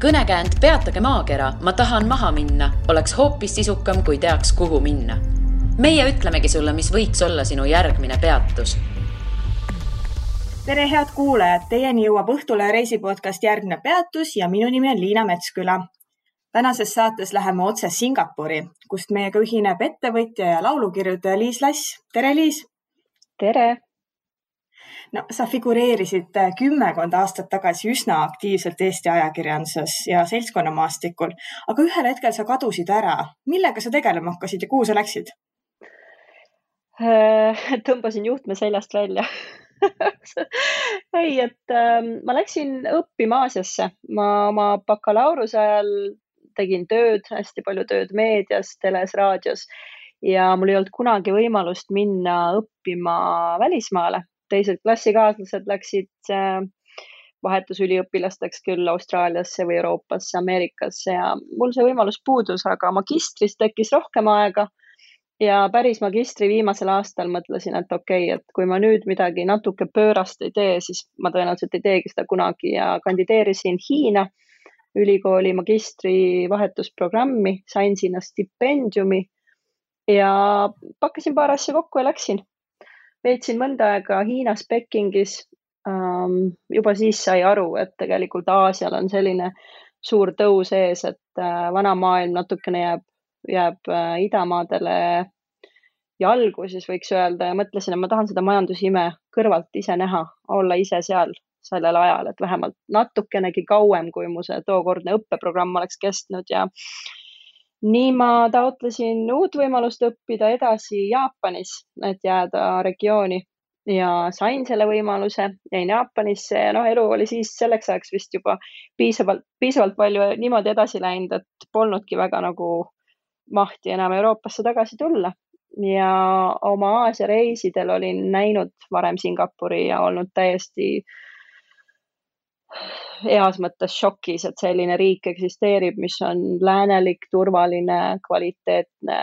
Kõnekäänd Peatage maakera, ma tahan maha minna, oleks hoopis sisukam, kui teaks, kuhu minna. Meie ütlemegi sulle, mis võiks olla sinu järgmine peatus. Tere head kuulajad, teieni jõuab Õhtule reisipodcast Järgne peatus ja minu nimi on Liina Metsküla. Tänases saates läheme otse Singapuri, kust meiega ühineb ettevõtja ja laulukirjutaja Liis Lass. Tere Liis! Tere! No, sa figureerisid 10 aastat tagasi üsna aktiivselt Eesti ajakirjanduses ja seltskonnamaastikul, aga ühel hetkel sa kadusid ära. Millega sa tegelema hakkasid ja kuhu sa läksid? Tõmbasin juhtme seljast välja. Ei, ma läksin õppima Aasiasse. Ma oma bakalaureuse ajal tegin tööd, hästi palju tööd meedias, teles, raadios ja mul ei olnud kunagi võimalust minna õppima välismaale. Teised klassikaaslased läksid vahetusüliõpilasteks küll Austraaliasse või Euroopasse, Ameerikasse ja mul see võimalus puudus, aga magistris tekkis rohkem aega ja päris magistri viimasel aastal mõtlesin, et okei, et kui ma nüüd midagi natuke pöörast ei tee, siis ma tõenäoliselt ei teegi seda kunagi ja kandideerisin Hiina ülikooli magistri vahetusprogrammi, sain sinna stipendiumi ja pakkasin paar asja kokku ja läksin. Veetsin mõnda aega Hiinas Pekingis, juba siis sai aru, et tegelikult Aasial on selline suur tõus ees, et vana maailm natukene jääb idamaadele jalgu, siis võiks öelda ja mõtlesin, et ma tahan seda majandusime kõrvalt ise näha, olla ise seal sellel ajal, et vähemalt natukenegi kauem, kui mu see tookordne õppeprogramm oleks kestnud ja nii ma taotlesin uut võimalust õppida edasi Jaapanis, et jääda regiooni ja sain selle võimaluse, jäin Jaapanisse ja elu oli siis selleks ajaks vist juba piisavalt palju niimoodi edasi läinud, et polnudki väga nagu mahti enam Euroopasse tagasi tulla. Ja oma Aasia reisidel olin näinud varem Singapuri ja olnud täiesti heas mõttes šokis, et selline riik eksisteerib, mis on läänelik, turvaline, kvaliteetne,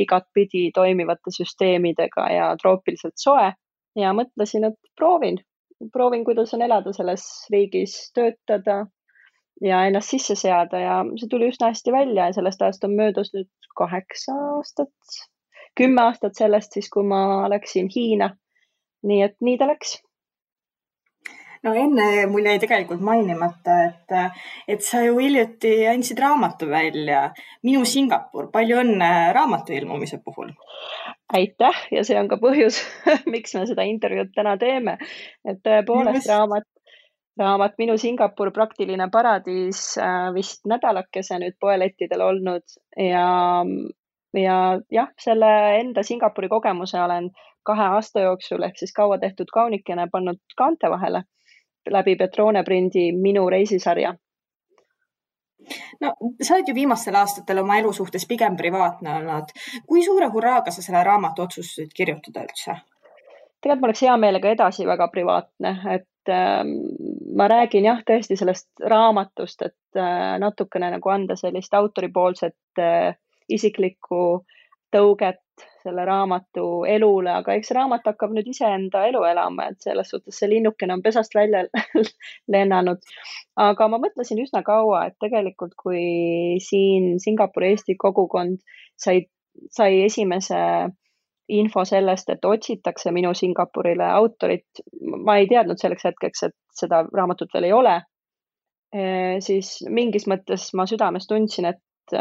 igatpidi toimivate süsteemidega ja troopiliselt soe. Ja mõtlesin, et proovin, kuidas on elada selles riigis, töötada ja ennast sisse seada ja see tuli üsna hästi välja ja sellest ajast on möödas nüüd 8 aastat, 10 aastat sellest siis, kui ma läksin Hiina. Nii et nii ta läks. No enne mul jäi tegelikult mainimata, et sa ju hiljuti andsid raamatu välja. Minu Singapur, palju õnne raamatu ilmumise puhul. Aitäh ja see on ka põhjus, miks me seda intervjuud täna teeme. Et tõepoolest raamat Minu Singapur, praktiline paradiis vist nädalakese nüüd poelettidel olnud ja jah, selle enda Singapuri kogemuse olen 2 aasta jooksul ehk siis kaua tehtud kaunikene pannud kaante vahele läbi Petrone prindi Minu reisisarja. No, sa oled ju viimastel aastatel oma elu suhtes pigem privaatne olnud. Kui suure hurraaga sa selle raamatu otsustasid kirjutada üldse? Tegelikult ma oleks hea meelega edasi väga privaatne, et ma räägin jah tõesti sellest raamatust, et natukene nagu anda sellist autoripoolset isiklikku tõuget selle raamatu elule, aga eks raamat hakkab nüüd iseenda elu elama, et selles suhtes see linnukene on pesast välja lennanud. Aga ma mõtlesin üsna kaua, et tegelikult kui siin Singapuri Eesti kogukond sai esimese info sellest, et otsitakse Minu Singapurile autorit, ma ei teadnud selleks hetkeks, et seda raamatut veel ei ole, siis mingis mõttes ma südames tundsin, et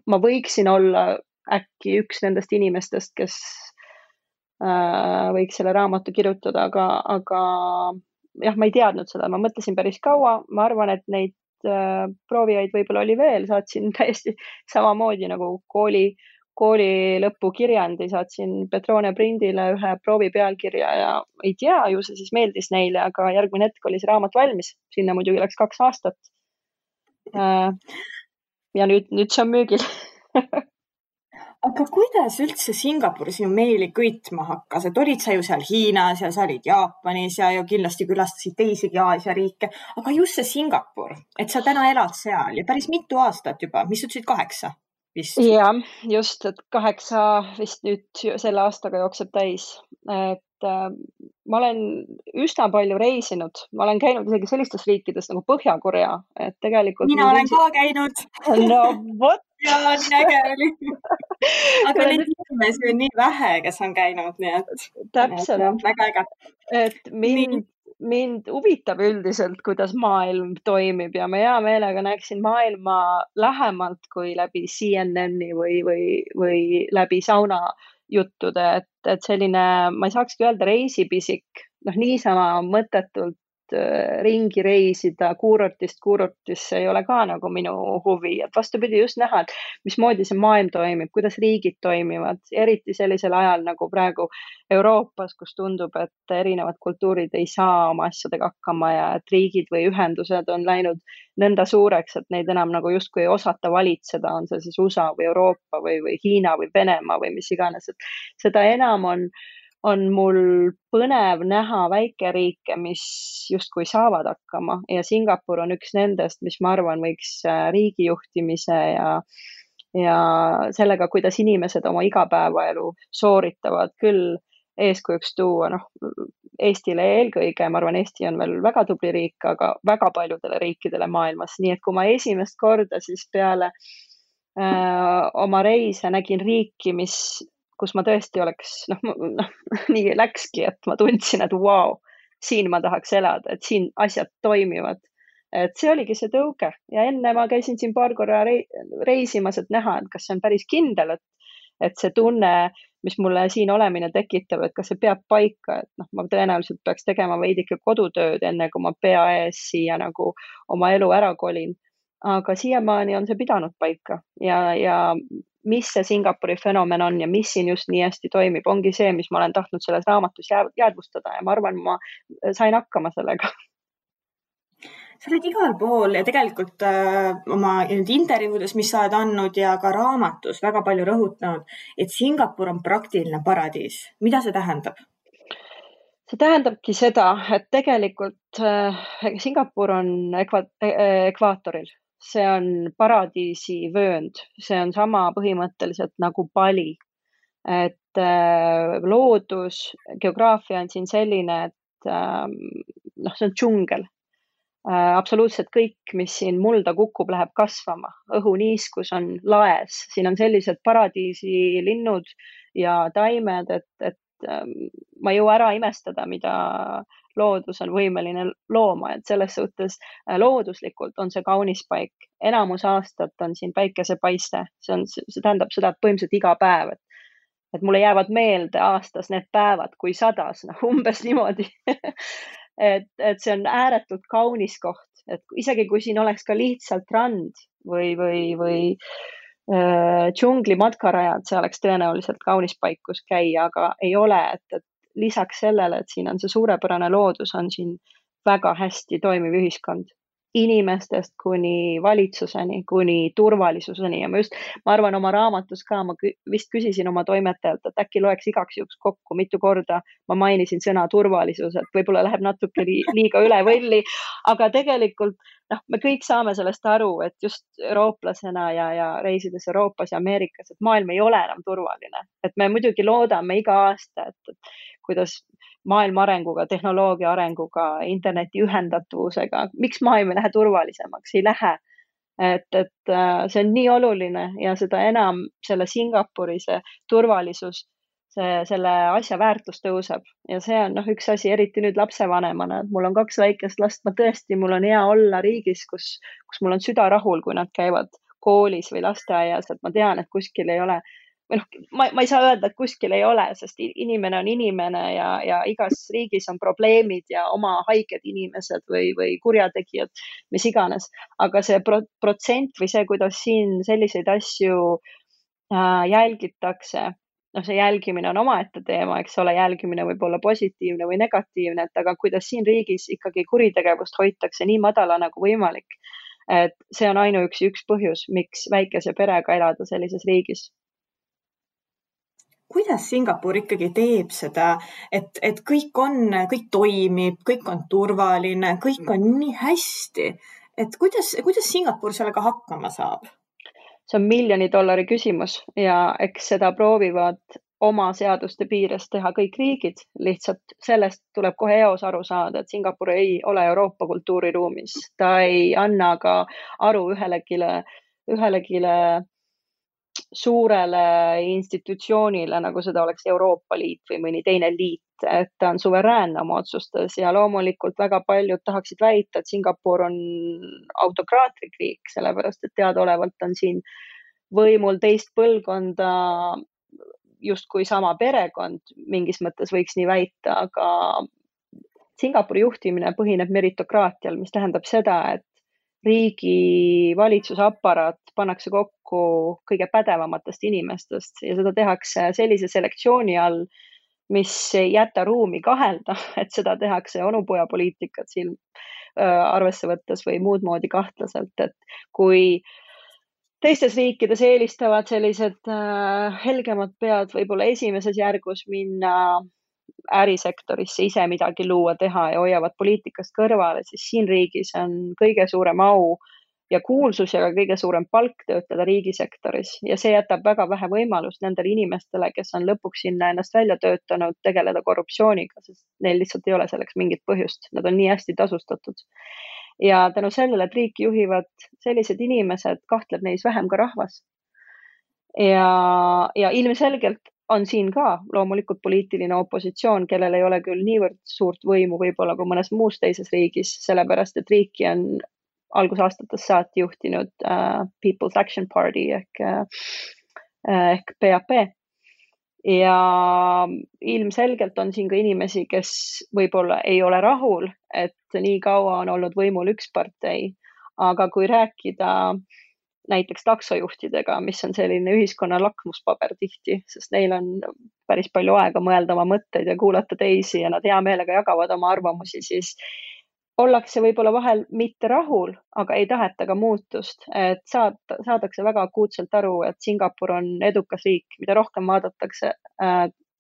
ma võiksin olla äkki üks nendest inimestest, kes võiks selle raamatu kirjutada, aga jah, ma ei teadnud seda, ma mõtlesin päris kaua, ma arvan, et neid proovijaid võib-olla oli veel, saatsin täiesti samamoodi nagu kooli lõpukirjandi, saatsin Petrone prindile ühe proovi pealkirja ja ei tea, ju see siis meeldis neile, aga järgmine hetk oli see raamat valmis, sinna muidugi läks 2 aastat. Ja nüüd see on müügil. Aga kuidas üldse Singapur sinu meeli kõitma hakkas? Et olid sa ju seal Hiinas ja sa olid Jaapanis ja kindlasti külastasid teisigi Aasia riike, aga just see Singapur, et sa täna elad seal ja päris mitu aastat juba, mis ütlesid 8 vist? Ja, just, et 8 vist nüüd selle aastaga jookseb täis. ma olen üsna palju reisinud, ma olen käinud isegi sellistes riikides nagu Põhja-Korea, et tegelikult mina olen ka käinud. No vot. Ja nii äge oli. Aga neid inimesi on nii vähe, kes on käinud, nii et täpselt. Väga äge. Et mind huvitab üldiselt, kuidas maailm toimib ja ma hea meelega näeksin maailma lähemalt kui läbi CNN-i või läbi sauna juttude, et selline, ma ei saakski öelda reisipisik, niisama mõttetult ringi reisida kuurortisse ei ole ka nagu minu huvi, et vastupidi just näha, et mismoodi see maailm toimib, kuidas riigid toimivad, eriti sellisel ajal nagu praegu Euroopas, kus tundub, et erinevad kultuurid ei saa oma asjadega hakkama ja et riigid või ühendused on läinud nõnda suureks, et neid enam nagu justkui ei osata valitseda, on see siis USA või Euroopa või Hiina või Venemaa või mis iganes, et seda enam on mul põnev näha väikeriike, mis justkui saavad hakkama ja Singapur on üks nendest, mis ma arvan võiks riigijuhtimise ja sellega, kuidas inimesed oma igapäevaelu sooritavad küll eeskujuks tuua, Eestile eelkõige, ma arvan, Eesti on veel väga tubli riik, aga väga paljudele riikidele maailmas, nii et kui ma esimest korda siis peale oma reise nägin riiki, kus ma tõesti oleks, nii läkski, et ma tundsin, et vau, siin ma tahaks elada, et siin asjad toimivad. Et see oligi see tõuge ja enne ma käisin siin paar korra reisimas, et näha, et kas see on päris kindel, et see tunne, mis mulle siin olemine tekitab, et kas see peab paika, et ma tõenäoliselt peaks tegema veidike kodutööd, enne kui ma pea ees siia nagu oma elu ära kolin. Aga siiamaani on see pidanud paika ja mis see Singapuri fenomen on ja mis siin just nii hästi toimib, ongi see, mis ma olen tahtnud selles raamatus jäädvustada ja ma arvan, ma sain hakkama sellega. Sa oled igal pool ja tegelikult oma intervjuudes, mis sa oled andnud ja ka raamatus väga palju rõhutanud, et Singapur on praktiline paradiis. Mida see tähendab? See tähendabki seda, et tegelikult Singapur on ekvaatoril. See on paradiisi vöönd, see on sama põhimõtteliselt nagu Bali, et loodus, geograafia on siin selline, et see on džungel. Absoluutselt kõik, mis siin mulda kukub, läheb kasvama, õhuniiskus on laes, siin on sellised paradiisi linnud ja taimed, et ma ei jõua ära imestada, mida loodus on võimeline looma, et selles suhtes looduslikult on see kaunis paik. Enamus aastat on siin päikesepaiste, see tähendab seda, et põhimõtteliselt iga päev, et mulle jäävad meelde aastas need päevad, kui sadas, umbes niimoodi. et see on ääretult kaunis koht, et isegi kui siin oleks ka lihtsalt rand või džungli matkarajad, see oleks tõenäoliselt kaunis paik, kus käia, aga ei ole, et lisaks sellele, et siin on see suurepärane loodus, on siin väga hästi toimiv ühiskond. Inimestest kuni valitsuseni, kuni turvalisuseni ja ma arvan oma raamatus ka, ma vist küsisin oma toimetajalt, et äkki loeks igaks juhuks kokku, mitu korda ma mainisin sõna turvalisus, et võib-olla läheb natuke liiga üle võlli, aga tegelikult me kõik saame sellest aru, et just eurooplasena ja reisides Euroopas ja Ameerikas, et maailm ei ole enam turvaline, et me muidugi loodame iga aasta, et kuidas maailma arenguga, tehnoloogia arenguga, interneti ühendatavusega, miks maailm ei lähe turvalisemaks, ei lähe. Et see on nii oluline ja seda enam selle Singapuri see turvalisus, selle asja väärtus tõuseb ja see on üks asi, eriti nüüd lapsevanemana, et mul on 2 väikest last, ma tõesti, mul on hea olla riigis, kus mul on süda rahul, kui nad käivad koolis või lasteaias, et ma tean, et kuskil ei ole ma ei saa öelda, et kuskil ei ole, sest inimene on inimene ja igas riigis on probleemid ja oma haiged inimesed või kurjategijad, mis iganes. Aga see protsent või see, kuidas siin selliseid asju jälgitakse, see jälgimine on omaette teema, eks ole, jälgimine võib olla positiivne või negatiivne, aga kuidas siin riigis ikkagi kuritegevust hoitakse nii madala nagu võimalik. Et see on ainuüksi üks põhjus, miks väikese perega elada sellises riigis. Kuidas Singapur ikkagi teeb seda, et kõik toimib, kõik on turvaline, kõik on nii hästi, et kuidas Singapur sellega hakkama saab? See on $1 miljoni küsimus ja eks seda proovivad oma seaduste piires teha kõik riigid, lihtsalt sellest tuleb kohe eos aru saada, et Singapur ei ole Euroopa kultuuriruumis, ta ei anna ka aru ühelegi suurele institutsioonile, nagu seda oleks Euroopa Liit või mõni teine liit, et ta on suveräänne oma otsustes ja loomulikult väga paljud tahaksid väita, et Singapur on autokraatlik riik, sellepärast et teadaolevalt on siin võimul teist põlvkonda justkui sama perekond, mingis mõttes võiks nii väita, aga Singapuri juhtimine põhineb meritokraatial, mis tähendab seda, et riigi valitsusaparaat pannakse kokku kõige pädevamatest inimestest ja seda tehakse sellise selektsiooni all, mis ei jäta ruumi kahelda, et seda tehakse onupojapoliitikat siin arvesse võttes või muud moodi kahtlaselt, et kui teistes riikides eelistavad sellised helgemad pead võib-olla esimeses järgus minna ärisektorisse ise midagi luua, teha ja hoiavad poliitikast kõrvale, siis siin riigis on kõige suurem au ja kuulsus ja ka kõige suurem palk töötada riigisektoris ja see jätab väga vähe võimalust nendele inimestele, kes on lõpuks sinna ennast välja töötanud, tegeleda korruptsiooniga, sest neil lihtsalt ei ole selleks mingit põhjust, nad on nii hästi tasustatud. Ja tänu sellele, et riiki juhivad sellised inimesed, kahtleb neis vähem ka rahvas. Ja ilmselgelt on siin ka loomulikult poliitiline opositsioon, kellel ei ole küll niivõrd suurt võimu võib-olla kui mõnes muus teises riigis, sellepärast et riiki on algusaastatest saati juhtinud People's Action Party ehk PAP. Ja ilmselgelt on siin ka inimesi, kes võib-olla ei ole rahul, et nii kaua on olnud võimul üks partei, aga kui rääkida näiteks taksojuhtidega, mis on selline ühiskonna lakmuspaber tihti, sest neil on päris palju aega mõelda oma mõtteid ja kuulata teisi ja nad hea meelega jagavad oma arvamusi, siis ollakse võib-olla vahel mitte rahul, aga ei taheta ka muutust, et saadakse väga akuutselt aru, et Singapur on edukas riik, mida rohkem vaadatakse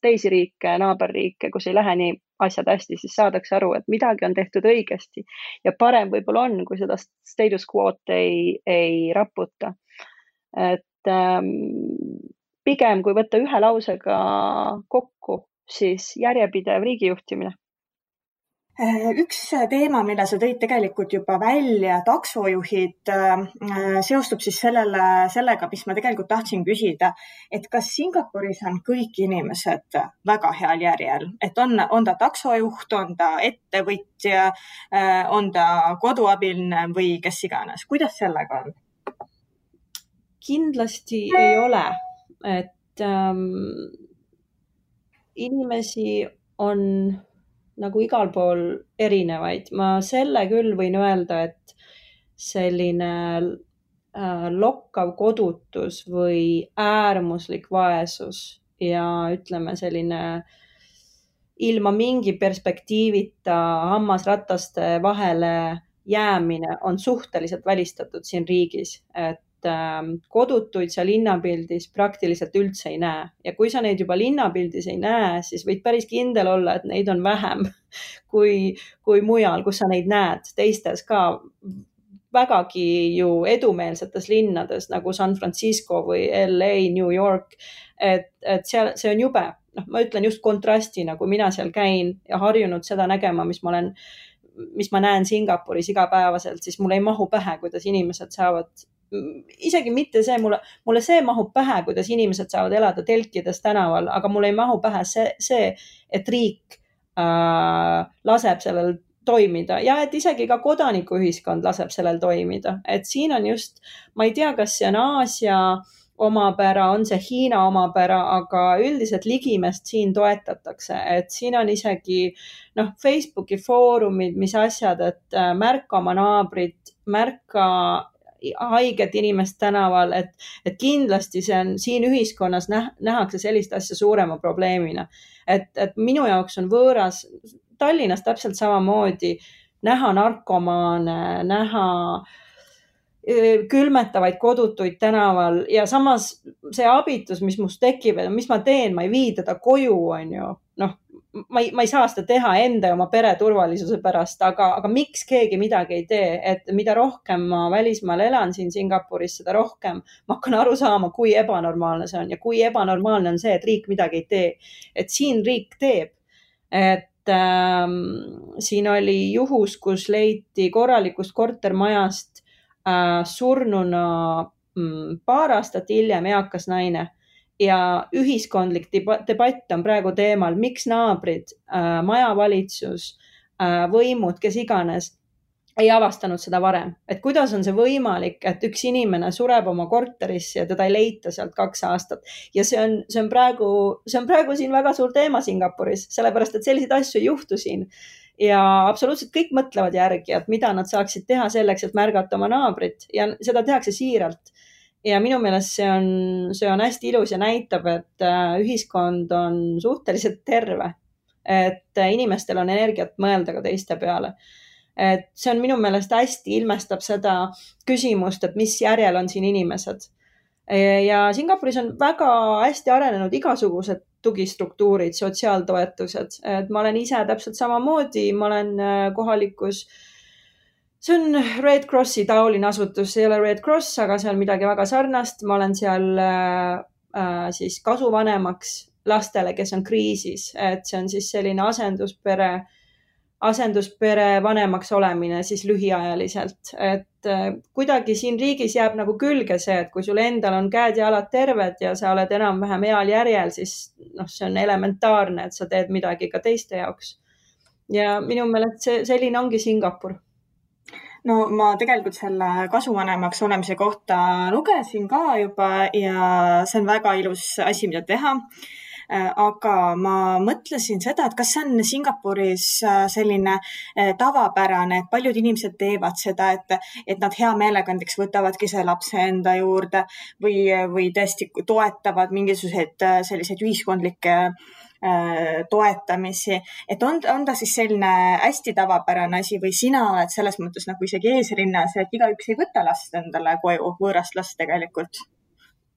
teisi riike, naaberriike, kus ei lähe nii asjad hästi, siis saadakse aru, et midagi on tehtud õigesti ja parem võib-olla on, kui seda status quo'd ei raputa. Et pigem, kui võtta ühe lausega kokku, siis järjepidev riigijuhtimine. Üks teema, mille sa tõid tegelikult juba välja, taksojuhid, seostub siis sellega, mis ma tegelikult tahtsin küsida, et kas Singapuris on kõik inimesed väga heal järjel, et on ta taksojuht, on ta ettevõtja, on ta koduabiline või kes iganes, kuidas sellega on? Kindlasti ei ole, et inimesi on nagu igal pool erinevaid. Ma selle küll võin öelda, et selline lokkav kodutus või äärmuslik vaesus ja ütleme selline ilma mingi perspektiivita hammasrataste vahele jäämine on suhteliselt välistatud siin riigis, et kodutuid sa linnapildis praktiliselt üldse ei näe. Ja kui sa neid juba linnapildis ei näe, siis võid päris kindel olla, et neid on vähem kui mujal, kus sa neid näed. Teistes ka vägagi ju edumeelsetes linnades nagu San Francisco või LA, New York. Et see on jube. Ma ütlen just kontrastina, kui mina seal käin ja harjunud seda nägema, mis ma näen Singapuris igapäevaselt, siis mulle ei mahu pähe, kuidas inimesed saavad isegi mitte see, mulle see mahub pähe, kuidas inimesed saavad elada telkides tänaval, aga mulle ei mahu pähe see et riik laseb sellel toimida ja et isegi ka kodanikuühiskond laseb sellel toimida. Et siin on just, ma ei tea, kas see on Aasia omapära, on see Hiina omapära, aga üldiselt ligimest siin toetatakse, et siin on isegi Facebooki foorumid, mis asjad, et märka oma naabrit, märka haiget inimest tänaval, et kindlasti see on siin ühiskonnas nähakse sellist asja suurema probleemina. Et minu jaoks on võõras Tallinnas täpselt samamoodi näha narkomaane, näha külmetavaid kodutuid tänaval ja samas see abitus, mis must tekib, mis ma teen, ma ei vii teda koju, on ju. Noh, ma ei saa seda teha enda ja oma pere turvalisuse pärast, aga miks keegi midagi ei tee, et mida rohkem ma välismaal elan siin Singapuris, seda rohkem ma hakkan aru saama, kui ebanormaalne see on ja kui ebanormaalne on see, et riik midagi ei tee. Et siin riik teeb. Et siin oli juhus, kus leiti korralikust kortermajast surnuna paar aastat hiljem eakas naine ja ühiskondlik debatt on praegu teemal, miks naabrid, majavalitsus, võimud, kes iganes ei avastanud seda varem. Et kuidas on see võimalik, et üks inimene sureb oma korterisse ja teda ei leita sealt 2 aastat. Ja see on praegu siin väga suur teema Singapuris, sellepärast, et selliseid asju ei juhtu siin. Ja absoluutselt kõik mõtlevad järgi, et mida nad saaksid teha selleks, et märgata oma naabrit ja seda tehakse siiralt. Ja minu meelest see on hästi ilus ja näitab, et ühiskond on suhteliselt terve, et inimestel on energiat mõelda ka teiste peale. Et see on minu meelest hästi ilmestab seda küsimust, et mis järjel on siin inimesed. Ja Singapuris on väga hästi arenenud igasugused tugistruktuurid, sotsiaaltoetused. Et ma olen ise täpselt samamoodi, ma olen kohalikus, see on Red Crossi taoline asutus, see ei ole Red Cross, aga see on midagi väga sarnast. Ma olen seal siis kasuvanemaks lastele, kes on kriisis, et see on siis selline asenduspere vanemaks olemine siis lühiajaliselt, et kuidagi siin riigis jääb nagu külge see, et kui sul endal on käed ja jalad terved ja sa oled enam-vähem heal järjel, siis see on elementaarne, et sa teed midagi ka teiste jaoks. Ja minu meelest selline ongi Singapur. No ma tegelikult selle kasuvanemaks olemise kohta lugesin ka juba ja see on väga ilus asi, mida teha. Aga ma mõtlesin seda, et kas see on Singapuris selline tavapärane, et paljud inimesed teevad seda, et nad hea meelega näiteks võtavadki see lapse enda juurde või tõesti toetavad mingisuguseid selliseid ühiskondlikke toetamisi, et on ta siis selline hästi tavapärane asi või sina oled selles mõttes nagu isegi eesrinnas, et igaüks ei võta last endale koju, võõrast last tegelikult?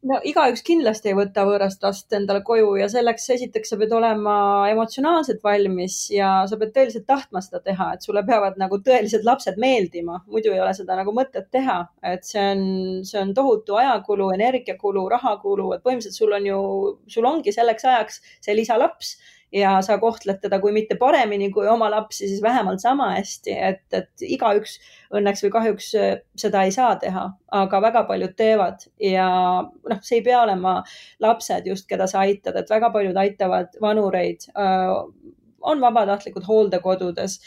No igaüks kindlasti ei võta võõrast last endale koju ja selleks esiteks sa pead olema emotsionaalselt valmis ja sa pead tõeliselt tahtma seda teha, et sulle peavad nagu tõelised lapsed meeldima, muidu ei ole seda nagu mõtet teha, et see on tohutu ajakulu, energiakulu, rahakulu, et põhimõtteliselt sul ongi selleks ajaks see lisalaps ja sa kohtled teda kui mitte paremini kui oma lapsi, siis vähemalt sama hästi, et igaüks õnneks või kahjuks seda ei saa teha, aga väga paljud teevad ja see ei pea olema lapsed just, keda sa aitad, et väga paljud aitavad vanureid, on vabatahtlikud hooldekodudes,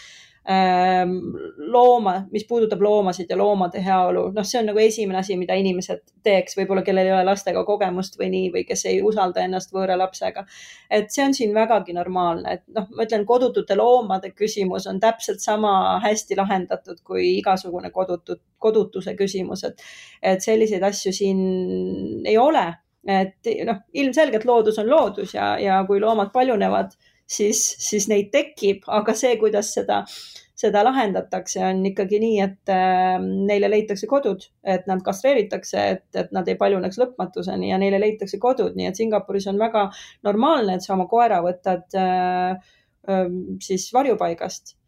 mis puudutab loomasid ja loomade heaolu. See on nagu esimene asi, mida inimesed teeks, võib-olla kellel ei ole lastega kogemust või nii, või kes ei usalda ennast võõra lapsega. Et see on siin vägagi normaalne, et ma ütlen, kodutute loomade küsimus on täpselt sama hästi lahendatud kui igasugune kodutuse küsimus, et selliseid asju siin ei ole, et ilmselgelt loodus on loodus ja kui loomad paljunevad, siis neid tekib, aga see, kuidas seda lahendatakse, on ikkagi nii, et neile leitakse kodud, et nad kastreeritakse, et nad ei paljuneks lõpmatuseni ja neile leitakse kodud. Nii et Singapuris on väga normaalne, et sa oma koera võtad siis varjupaigast.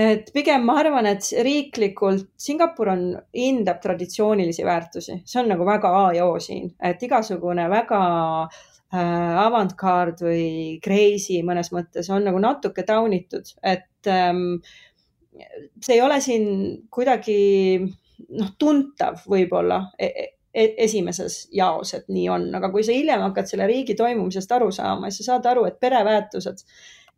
Et pigem ma arvan, et riiklikult Singapur hindab traditsioonilisi väärtusi. See on nagu väga A ja O siin, et igasugune väga avantgard või crazy mõnes mõttes on nagu natuke taunitud, et see ei ole siin kuidagi tuntav võib-olla esimeses jaos, et nii on, aga kui sa hiljem hakkad selle riigi toimumisest aru saama, siis sa saad aru, et pereväärtused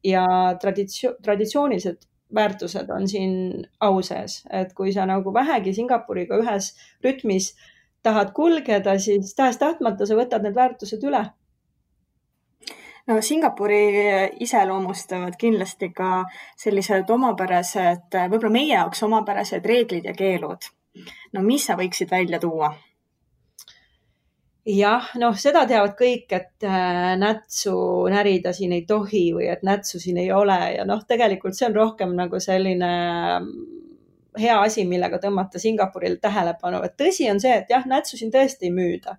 ja traditsioonilised väärtused on siin au sees, et kui sa nagu vähegi Singapuriga ühes rütmis tahad kulgeda, siis tahes-tahtmata sa võtad need väärtused üle. No Singapuri iseloomustavad kindlasti ka sellised omapärased, võib-olla meie jaoks omapärased reeglid ja keelud. No mis sa võiksid välja tuua? Jah, seda teavad kõik, et nätsu närida siin ei tohi või et nätsu siin ei ole ja tegelikult see on rohkem nagu selline hea asi, millega tõmmata Singapurile tähelepanu, et tõsi on see, et jah, nätsu siin tõesti ei müüda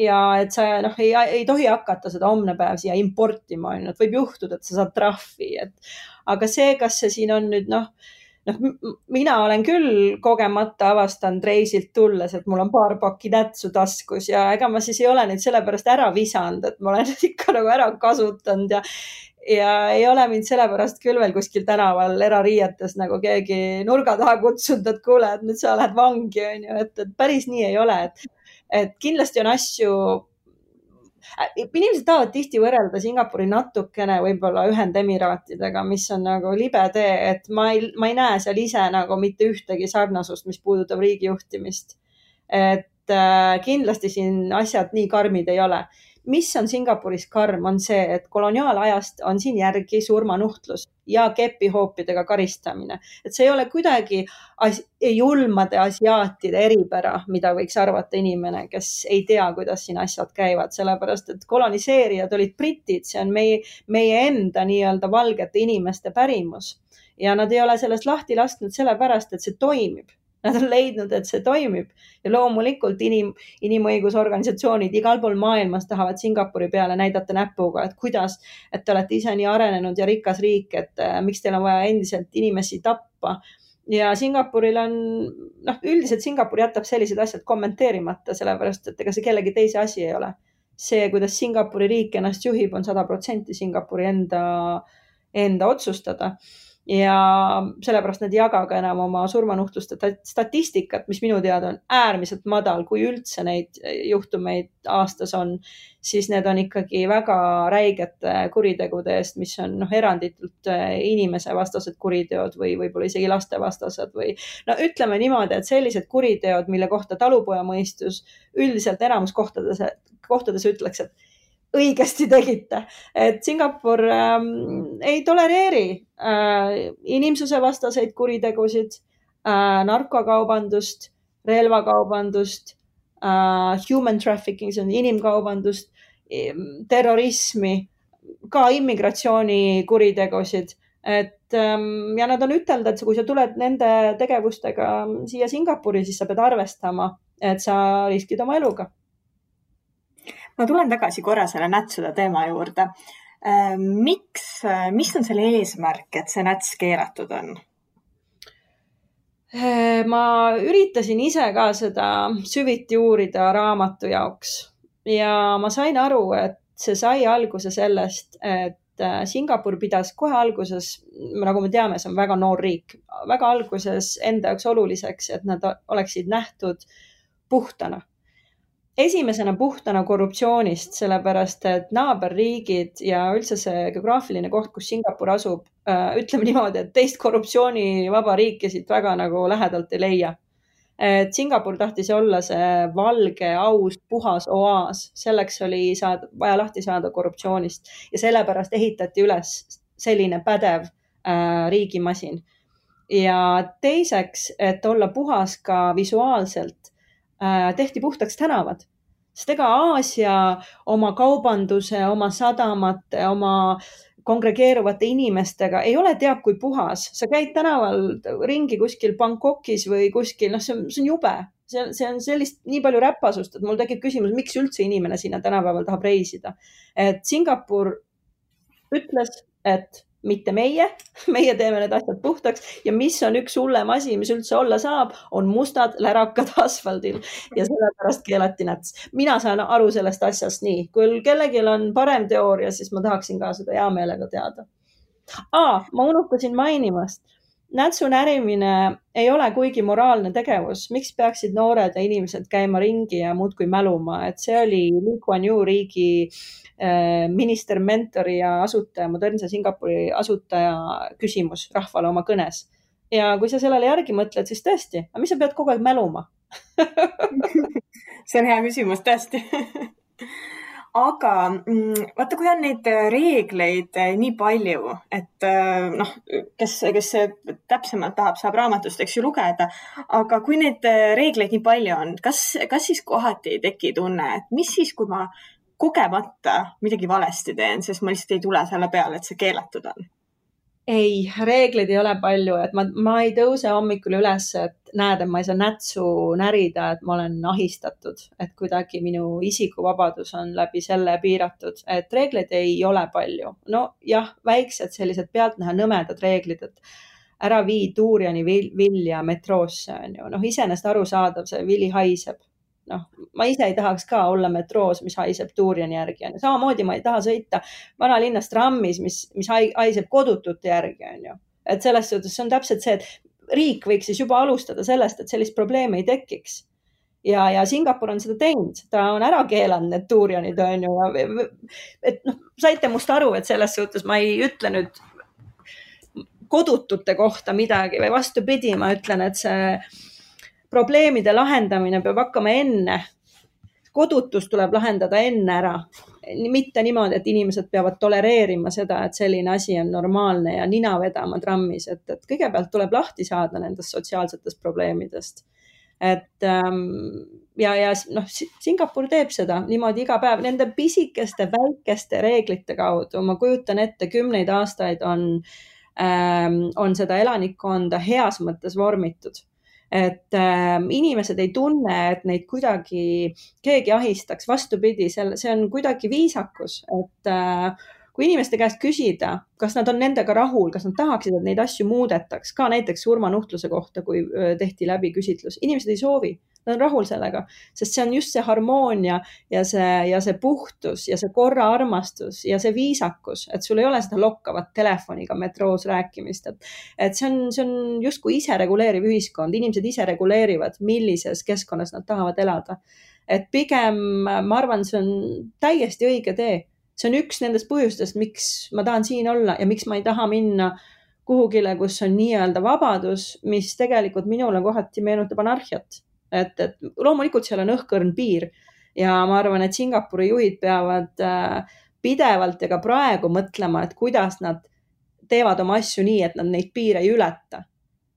ja et sa ei tohi hakata seda homne päev siia importima, et võib juhtuda, et sa saad trahvi, aga see, kas see siin on nüüd mina olen küll kogemata avastanud reisilt tulles, et mul on paar pakki nätsu taskus ja ega ma siis ei ole neid sellepärast ära visanud, et ma olen ikka ära kasutanud ja ei ole mind sellepärast küll veel kuskil tänaval erariietes keegi nurga taha kutsunud, et kuule, et nüüd sa lähed vangi, on ju, et päris nii ei ole, et kindlasti on asju, inimesed tahavad tihti võrrelda Singapuri natukene võib-olla Ühendemiraatidega, mis on libe tee, et ma ei näe seal ise mitte ühtegi sarnasust, mis puudutab riigijuhtimist. Et kindlasti siin asjad nii karmid ei ole. Mis on Singapuris karm, on see, et koloniaalajast on siin järgi surmanuhtlus ja kepihoopidega karistamine. Et see ei ole kuidagi julmade asiaatide eripära, mida võiks arvata inimene, kes ei tea, kuidas siin asjad käivad, sellepärast et koloniseerijad olid britid, see on meie enda nii-öelda valgete inimeste pärimus ja nad ei ole sellest lahti lasknud sellepärast, et see toimib. Nad on leidnud, et see toimib ja loomulikult inimõigusorganisatsioonid igal pool maailmas tahavad Singapuri peale näidata näpuga, et kuidas, et te olete ise nii arenenud ja rikas riik, et miks teil on vaja endiselt inimesi tappa. Ja Singapuril on, üldiselt Singapur jätab sellised asjad kommenteerimata, sellepärast, et ega see kellegi teise asi ei ole. See, kuidas Singapuri riik ennast juhib, on 100% Singapuri enda otsustada. Ja sellepärast nad ei jaga ka enam oma surmanuhtluste statistikat, mis minu teada on äärmiselt madal, kui üldse neid juhtumeid aastas on, siis need on ikkagi väga räigete kuritegude eest, mis on eranditult inimese vastased kuriteod või võib-olla isegi laste vastased või ütleme niimoodi, et sellised kuriteod, mille kohta talupojamõistus üldiselt enamus kohtades ütleks, et õigesti tegite, et Singapur ei tolereeri inimsuse vastaseid kuritegusid, narkokaubandust, relvakaubandust, human trafficking, see on inimkaubandust, terrorismi, ka immigratsioonikuritegusid, ja nad on ütelnud, et kui sa tuled nende tegevustega siia Singapuri, siis sa pead arvestama, et sa riskid oma eluga. Ma tulen tagasi korra selle nätsude teema juurde. Mis on selle eesmärk, et see näts keelatud on? Ma üritasin ise ka seda süviti uurida raamatu jaoks ja ma sain aru, et see sai alguse sellest, et Singapur pidas kohe alguses, nagu me teame, see on väga noor riik, väga alguses enda jaoks oluliseks, et nad oleksid nähtud puhtana. Esimesena puhtana korruptsioonist, sellepärast, et naaberriigid ja üldse see geograafiline koht, kus Singapur asub, ütleme niimoodi, et teist korruptsioonivaba riiki siit väga lähedalt ei leia. Et Singapur tahtis olla see valge, aus, puhas oaas. Selleks oli vaja lahti saada korruptsioonist ja sellepärast ehitati üles selline pädev riigimasin. Ja teiseks, et olla puhas ka visuaalselt, tehti puhtaks tänavad. Sest ega Aasia oma kaubanduse, oma sadamate, oma kongregeeruvate inimestega ei ole teab kui puhas. Sa käid tänaval ringi kuskil Bangkokis või kuskil, see on jube. See on sellist nii palju räpasust, et mul tekib küsimus, miks üldse inimene sinna tänapäeval tahab reisida. Et Singapur ütles, et mitte meie teeme need asjad puhtaks ja mis on üks hullem asi, mis üldse olla saab, on mustad lärakad asfaldil ja sellepärast keelati näts. Mina saan aru sellest asjast nii. Kui kellelgi on parem teooria, siis ma tahaksin ka seda hea meelega teada. Ma unustasin mainimast. Nätsu närimine ei ole kuigi moraalne tegevus. Miks peaksid noored ja inimesed käima ringi ja muudkui mäluma? Et see oli Lee Kuan Yew riigi minister, mentori ja asutaja, modernse Singapuri asutaja küsimus rahvale oma kõnes. Ja kui sa sellele järgi mõtled, siis tõesti, aga mis sa pead kogu aeg mäluma? See on hea küsimus, tõesti. Aga vaata, kui on neid reegleid nii palju, et kes täpsemalt tahab, saab raamatust, eks ju, lugeda, aga kui neid reegleid nii palju on, kas siis kohati ei teki tunne, et mis siis, kui ma kogemata midagi valesti teen, sest ma lihtsalt ei tule selle peale, et see keelatud on? ei, reegleid ei ole palju, et ma ei tõuse hommikul üles, et näed, et ma ei saa nätsu närida, et ma olen ahistatud, et kuidagi minu isikuvabadus on läbi selle piiratud, et reegleid ei ole palju. No jah, väiksed sellised pealtnäha nõmedad reeglid, et ära vii tuuriani vilja metroosse, on ju. Noh, iseenesest arusaadav, see vili haiseb. Noh, ma ise ei tahaks ka olla metroos, mis haiseb tuuriani järgi. Samamoodi ma ei taha sõita vanalinnas trammis, mis haiseb kodutute järgi. On ju. Et selles suhtes see on täpselt see, et riik võiks siis juba alustada sellest, et sellist probleemi ei tekiks. Ja Singapur on seda teinud. Ta on ära keelanud need tuurianid. On ju. Et noh, saite must aru, et selles suhtes ma ei ütle nüüd kodutute kohta midagi või vastupidi, ma ütlen, et see probleemide lahendamine peab hakkama enne. Kodutus tuleb lahendada enne ära. Mitte niimoodi, et inimesed peavad tolereerima seda, et selline asi on normaalne ja nina vedama trammis. Et kõigepealt tuleb lahti saada nendest sotsiaalsetest probleemidest. Et ja noh, Singapur teeb seda niimoodi iga päev. Nende pisikeste, väikeste reeglite kaudu, ma kujutan ette, 10 aastaid on seda elanikkonda heas mõttes vormitud. Et inimesed ei tunne, et neid kuidagi keegi ahistaks. Vastupidi, see on kuidagi viisakus, et kui inimeste käest küsida, kas nad on nendega rahul, kas nad tahaksid, et neid asju muudetaks, ka näiteks surmanuhtluse kohta, kui tehti läbi küsitlus. Inimesed ei soovi, nad on rahul sellega, sest see on just see harmoonia ja see puhtus ja see korra armastus ja see viisakus, et sul ei ole seda lokkavat telefoniga metroos rääkimist. Et see on justkui ise reguleeriv ühiskond. Inimesed ise reguleerivad, millises keskkonnas nad tahavad elada. Et pigem, ma arvan, see on täiesti õige tee. See on üks nendest põhjustest, miks ma tahan siin olla ja miks ma ei taha minna kuhugile, kus on nii-öelda vabadus, mis tegelikult minule kohati meenutab anarhiat. Et loomulikult seal on õhkõrn piir ja ma arvan, et Singapuri juhid peavad pidevalt ja ka praegu mõtlema, et kuidas nad teevad oma asju nii, et nad neid piire ei ületa.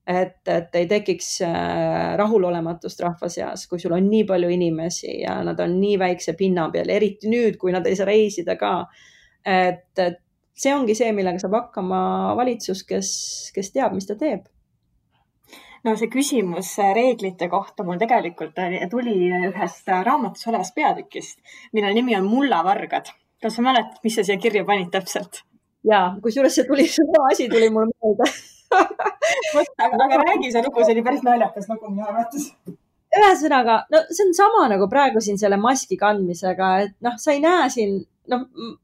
Et ei tekiks rahulolematust rahva seas, kui sul on nii palju inimesi ja nad on nii väikse pinna peal, eriti nüüd, kui nad ei saa reisida ka. Et see ongi see, millega saab hakkama valitsus, kes teab, mis ta teeb. No see küsimus reeglite kohta mul tegelikult tuli ühest raamatus olevast peatükist, mille nimi on Mullavargad. Kas sa mäletad, mis sa siia kirja panid täpselt? Jaa, kusjuures see asi tuli mulle meelde. aga räägi see lugu, see oli päris naljakas lugu minu arvates. Ühesõnaga, no see on sama nagu praegu siin selle maski kandmisega, et noh, sa ei näe siin,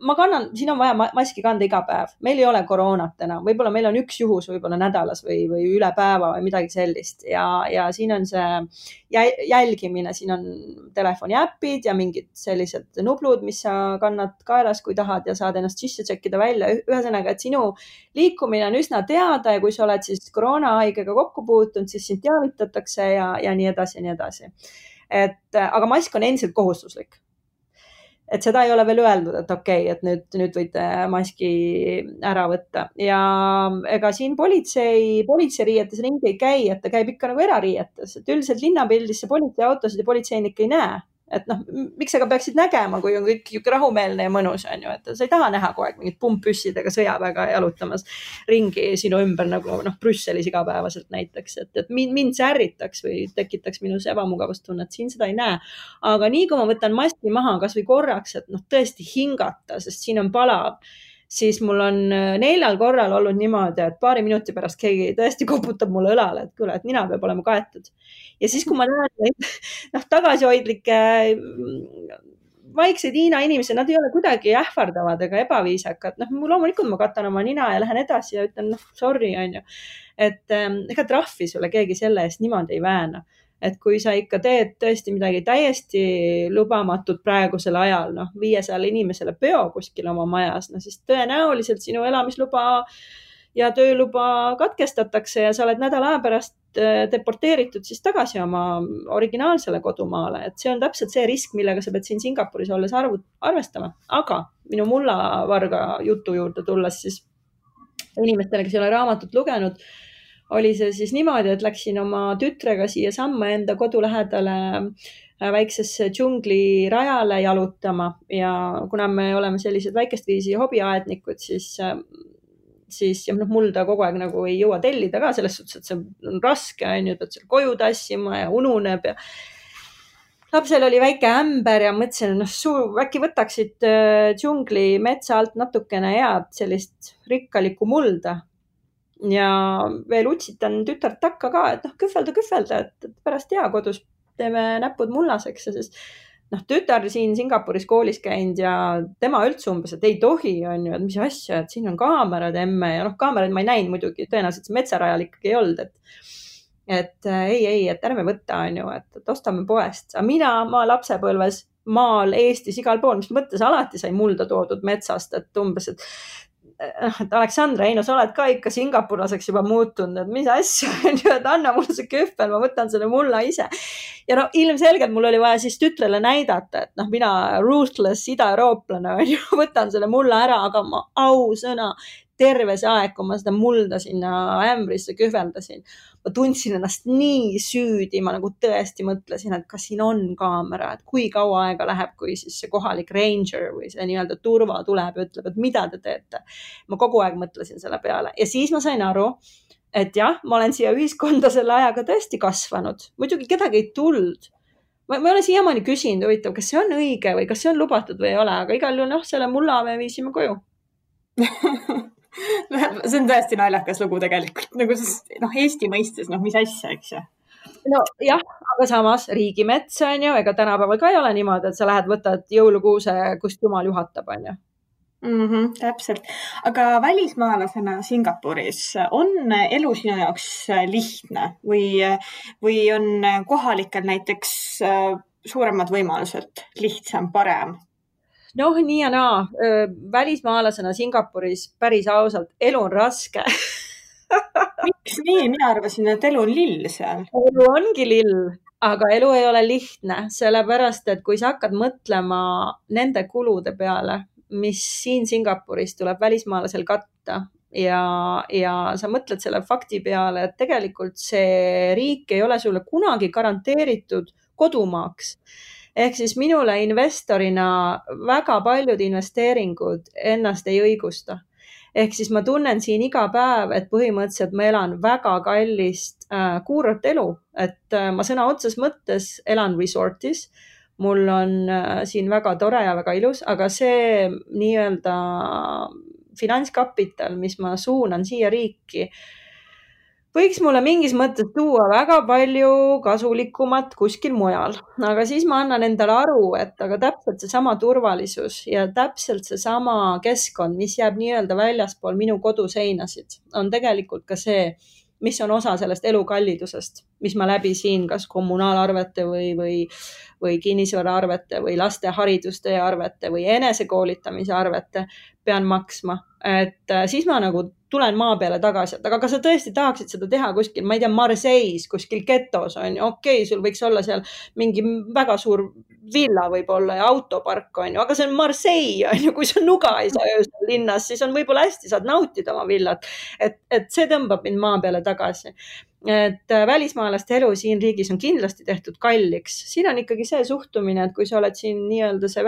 ma kannan, siin on vaja maski kanda iga päev. Meil ei ole koroonat enam. Võib-olla meil on üks juhus võib-olla nädalas või üle päeva või midagi sellist. Ja siin on see jälgimine, siin on telefoni äpid ja mingid sellised nublud, mis sa kannad kaelas, kui tahad ja saad ennast sisse tšekkida välja. Ühesõnaga, et sinu liikumine on üsna teada ja kui sa oled siis koroonahaigega kokku puutunud, siis sind teavitatakse ja nii edasi ja nii edasi. Aga mask on endiselt kohustuslik. Et seda ei ole veel öeldud, et okei, et nüüd võite maski ära võtta. Ja ega siin politseiriietes ringi ei käi, et ta käib ikka nagu erariietes. Et üldiselt linnapildisse politseiautosid ja politseinik ei näe. Et noh, miks sa ka peaksid nägema, kui on kõik rahumeelne ja mõnus, on ju, et sa ei taha näha kogu aeg mingid pumppüssidega sõjaväega jalutamas ringi sinu ümber nagu Brüsselis igapäevaselt näiteks, et mind see ärritaks või tekitaks minus ebamugavustunnet, siin seda ei näe. Aga nii kui ma võtan maski maha kas või korraks, et tõesti hingata, sest siin on palav, siis mul on 4 korral olnud niimoodi, et paari minuti pärast keegi tõesti koputab mulle õlale, et kuule, et nina peab olema kaetud. Ja siis, kui ma näen tagasihoidlikke vaikseid Hiina inimesi, nad ei ole kuidagi ähvardavad ega ebaviisakad. Loomulikult ma katan oma nina ja lähen edasi ja ütlen, sorry, on ju. Et ega trahvi sulle keegi selle eest niimoodi ei vääna. Et kui sa ikka teed tõesti midagi täiesti lubamatut praegusel ajal, 500 inimesele peo kuskil oma majas, siis tõenäoliselt sinu elamisluba ja tööluba katkestatakse ja sa oled nädala aja pärast deporteeritud siis tagasi oma originaalsele kodumaale. Et see on täpselt see risk, millega sa pead siin Singapuris olles arvestama. Aga minu mullavarga jutu juurde tulles siis inimestele, kes ei ole raamatut lugenud, oli see siis niimoodi, et läksin oma tütrega siia samma enda kodu lähedale väiksesse džunglirajale jalutama ja kuna me oleme sellised väikest viisi hobiaednikud, siis siis ja mulda kogu aeg nagu ei jõua tellida ka selles suhtes, et see on raske, on ju, pead seal koju tassima ja ununeb ja lapsel oli väike ämber ja mõtlesin, äkki võtaksid džungli metsa alt natukene head sellist rikkalikku mulda. Ja veel utsitan tütart takka ka, et kühvelda, et pärast hea kodus teeme näpud mullaseks. Ja siis tütar siin Singapuris koolis käinud ja tema üldse umbes, et ei tohi, on ju, et mis asja, et siin on kaamerad emme ja kaameraid ma ei näinud muidugi, tõenäoliselt metsarajal ikkagi ei olnud, et ei, et ärme võtta, on ju, et ostame poest. Aga ma lapsepõlves maal Eestis igal pool, mis mõttes alati sai mulda toodud metsast, et umbes, et Aleksandra, sa oled ka ikka singapurlaseks juba muutunud, et mis asja, et anna mulle see kühvel, ma võtan selle mulla ise. Ja ilmselgelt mul oli vaja siis tütrele näidata, et mina ruthless ida-eurooplane, võtan selle mulla ära, aga ma ausõna terve see aeg, kui ma seda mulda sinna ämbrisse kühveldasin, ma tundsin ennast nii süüdi, ma nagu tõesti mõtlesin, et kas siin on kaamera, et kui kaua aega läheb, kui siis see kohalik ranger või see nii-öelda turva tuleb ja ütleb, et mida te teete. Ma kogu aeg mõtlesin selle peale ja siis ma sain aru, et jah, ma olen siia ühiskonda selle ajaga tõesti kasvanud. Muidugi kedagi ei tulnud. Ma olen siiamaani küsinud, huvitav, kas see on õige või kas see on lubatud või ei ole, aga igal juhul selle mulla me viisime koju. See on tõesti naljakas lugu tegelikult, nagu Eesti mõistes, mis asja, eks ju? No jah, aga samas riigimets on ju, ega tänapäeval ka ei ole niimoodi, et sa lähed, võtad jõulukuuse, kust jumal juhatab, on ju. Täpselt. Aga välismaalasena Singapuris on elu sinu jaoks lihtne või on kohalikel näiteks suuremad võimalused, lihtsam, parem? Nii ja naa. Välismaalasena Singapuris päris ausalt, elu on raske. Miks nii? Mina arvasin, et elu on lill seal. Elu ongi lill, aga elu ei ole lihtne, sellepärast, et kui sa hakkad mõtlema nende kulude peale, mis siin Singapuris tuleb välismaalasel katta ja sa mõtled selle fakti peale, et tegelikult see riik ei ole sulle kunagi garanteeritud kodumaaks. Ehk siis minule investorina väga paljud investeeringud ennast ei õigusta. Ehk siis ma tunnen siin iga päev, et põhimõtteliselt ma elan väga kallist kuurat elu, et ma sõna otses mõttes elan resortis. Mul on siin väga tore ja väga ilus, aga see nii-öelda finantskapital, mis ma suunan siia riiki, võiks mulle mingis mõttes tuua väga palju kasulikumat kuskil mujal, aga siis ma annan endale aru, et aga täpselt seesama turvalisus ja täpselt seesama keskkond, mis jääb nii-öelda väljaspool minu koduseinasid, on tegelikult ka see, mis on osa sellest elukallidusest, mis ma läbi siin kas kommunaalarvete või kinnisvaraarvete või laste hariduste arvete või enesekoolitamise arvete pean maksma. Et siis ma nagu tulen maa peale tagasi, et aga kas sa tõesti tahaksid seda teha kuskil, ma ei tea, Marseilles, kuskil getos on ju, okei, sul võiks olla seal mingi väga suur villa võib-olla ja autopark on ju, aga see on Marseille on ju, kui sa nuga ei saa öösel linnas, siis on võib-olla hästi, saad nautida oma villat, et see tõmbab mind maa peale tagasi. Et välismaalaste elu siin riigis on kindlasti tehtud kalliks. Siin on ikkagi see suhtumine, et kui sa oled siin nii-öelda see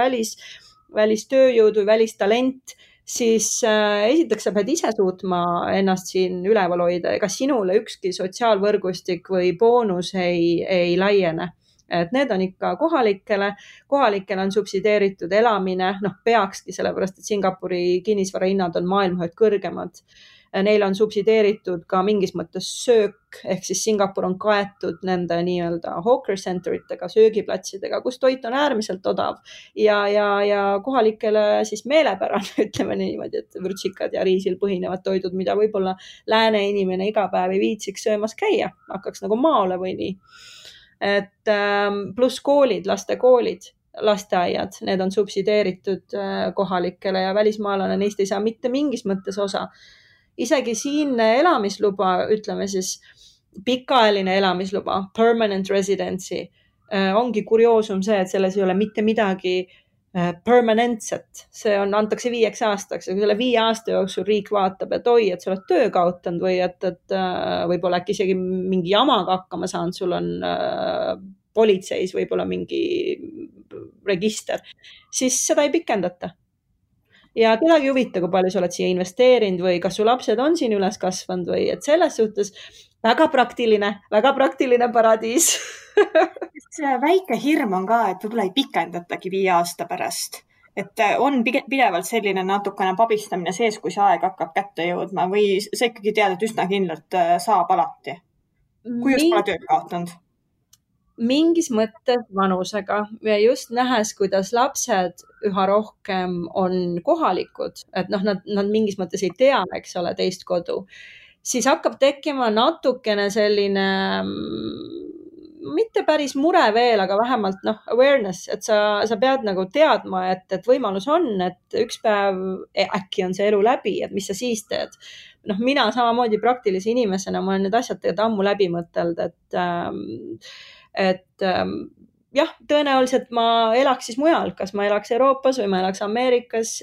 välistööjõud või välistalent, siis esiteks sa pead ise suutma ennast siin üleval hoida, ega sinule ükski sotsiaalvõrgustik või boonus ei laiene. Et need on ikka kohalikele on subsideeritud elamine, peakski sellepärast, et Singapuri kinnisvarahinnad on maailma ühed kõrgemad. Neil on subsideeritud ka mingis mõttes söök, ehk siis Singapur on kaetud nende nii-öelda hawker centeritega, söögiplatsidega, kus toit on äärmiselt odav ja kohalikele siis meelepärane, ütleme niimoodi, et vürtsikad ja riisil põhinevad toidud, mida võib-olla lääne inimene iga päev ei viitsiks söömas käia, hakkaks nagu maole või nii. Et pluss koolid, lastekoolid, lasteaiad, need on subsideeritud kohalikele ja välismaalane neist ei saa mitte mingis mõttes osa. Isegi siin elamisluba, ütleme siis pikaajaline elamisluba, permanent residency, ongi kurioosum see, et selles ei ole mitte midagi permanentset. See antakse 5 aastaks ja kui selle 5 aasta jooksul riik vaatab, et oi, et sa oled töö kaotanud või et võib-olla äkki isegi mingi jamaga hakkama saanud, sul on politseis võib-olla mingi register, siis seda ei pikendata. ja kedagi ei huvita, kui palju sa oled siia investeerinud või kas su lapsed on siin üles kasvanud või et selles suhtes väga praktiline paradiis. see väike hirm on ka, et võib-olla ei pikendatagi 5 aasta pärast. Et on pidevalt selline natukene pabistamine sees, kui see aeg hakkab kätte jõudma või sa ikkagi tead, et üsna kindlalt saab alati, kui just pole tööd kaotanud. Mingis mõttes vanusega ja just nähes, kuidas lapsed üha rohkem on kohalikud, et noh, nad mingis mõttes ei tea, eks ole, teist kodu, siis hakkab tekkima natukene selline mitte päris mure veel, aga vähemalt awareness, et sa pead nagu teadma, et võimalus on, et üks päev äkki on see elu läbi, et mis sa siis teed. Mina samamoodi praktilise inimesena, ma olen need asjad tegelikult ammu läbi mõtelnud, et jah, tõenäoliselt ma elaks siis mujal, kas ma elaks Euroopas või ma elaks Ameerikas,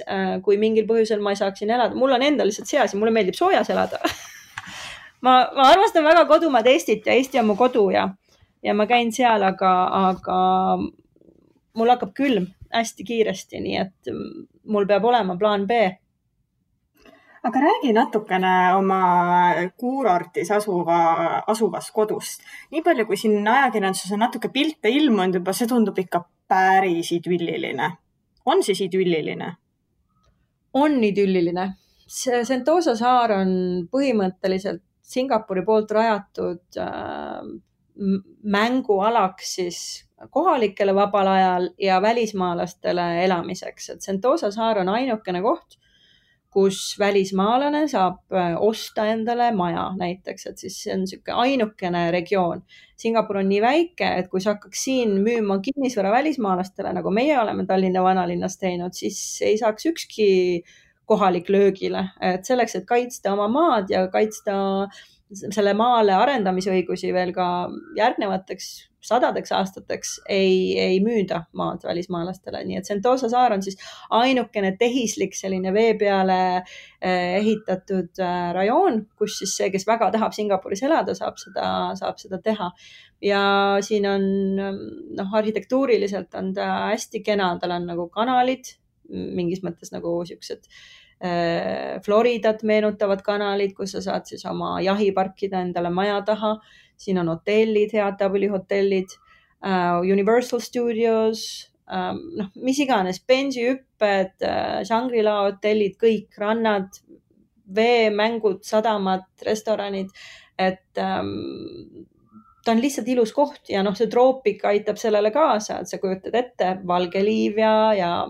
kui mingil põhjusel ma ei saaks siin elada. Mul on endal lihtsalt see asi, mulle meeldib soojas elada. ma armastan väga kodumaad Eestit ja Eesti on mu kodu ja ma käin seal, aga mul hakkab külm hästi kiiresti, nii et mul peab olema plaan B. Aga räägi natukene oma kuurortis asuvast kodust. Nii palju, kui siin ajakirjanduses on natuke pilte ilmunud juba, see tundub ikka päris idülliline. On siis idülliline? On idülliline. See Sentosa saar on põhimõtteliselt Singapuri poolt rajatud mängualaks siis kohalikele vabal ajal ja välismaalastele elamiseks. Et Sentosa saar on ainukene koht, kus välismaalane saab osta endale maja näiteks, et siis see on niisugune ainukene regioon. Singapur on nii väike, et kui sa hakkaks siin müüma kinnisvara välismaalastele, nagu meie oleme Tallinna vanalinnas teinud, siis ei saaks ükski kohalik löögile. Et selleks, et kaitsta oma maad ja kaitsta selle maale arendamisõigusi veel ka järgnevateks 100 aastateks ei müüda maad välismaalastele. Nii et Sentosa saar on siis ainukene tehislik selline vee peale ehitatud rajoon, kus siis see, kes väga tahab Singapuris elada, saab seda teha. Ja siin on arhitektuuriliselt on ta hästi kena, tal on nagu kanalid, mingis mõttes nagu siuksed Floridat meenutavad kanalid, kus sa saad siis oma jahi parkida endale maja taha. Siin on hotellid, head hotellid, Universal Studios, mis iganes, bensihüpped, Shangri-La hotellid, kõik rannad, veemängud, sadamad, restoranid, et ta on lihtsalt ilus koht ja see troopik aitab sellele kaasa, et sa kujutad ette valge liiv ja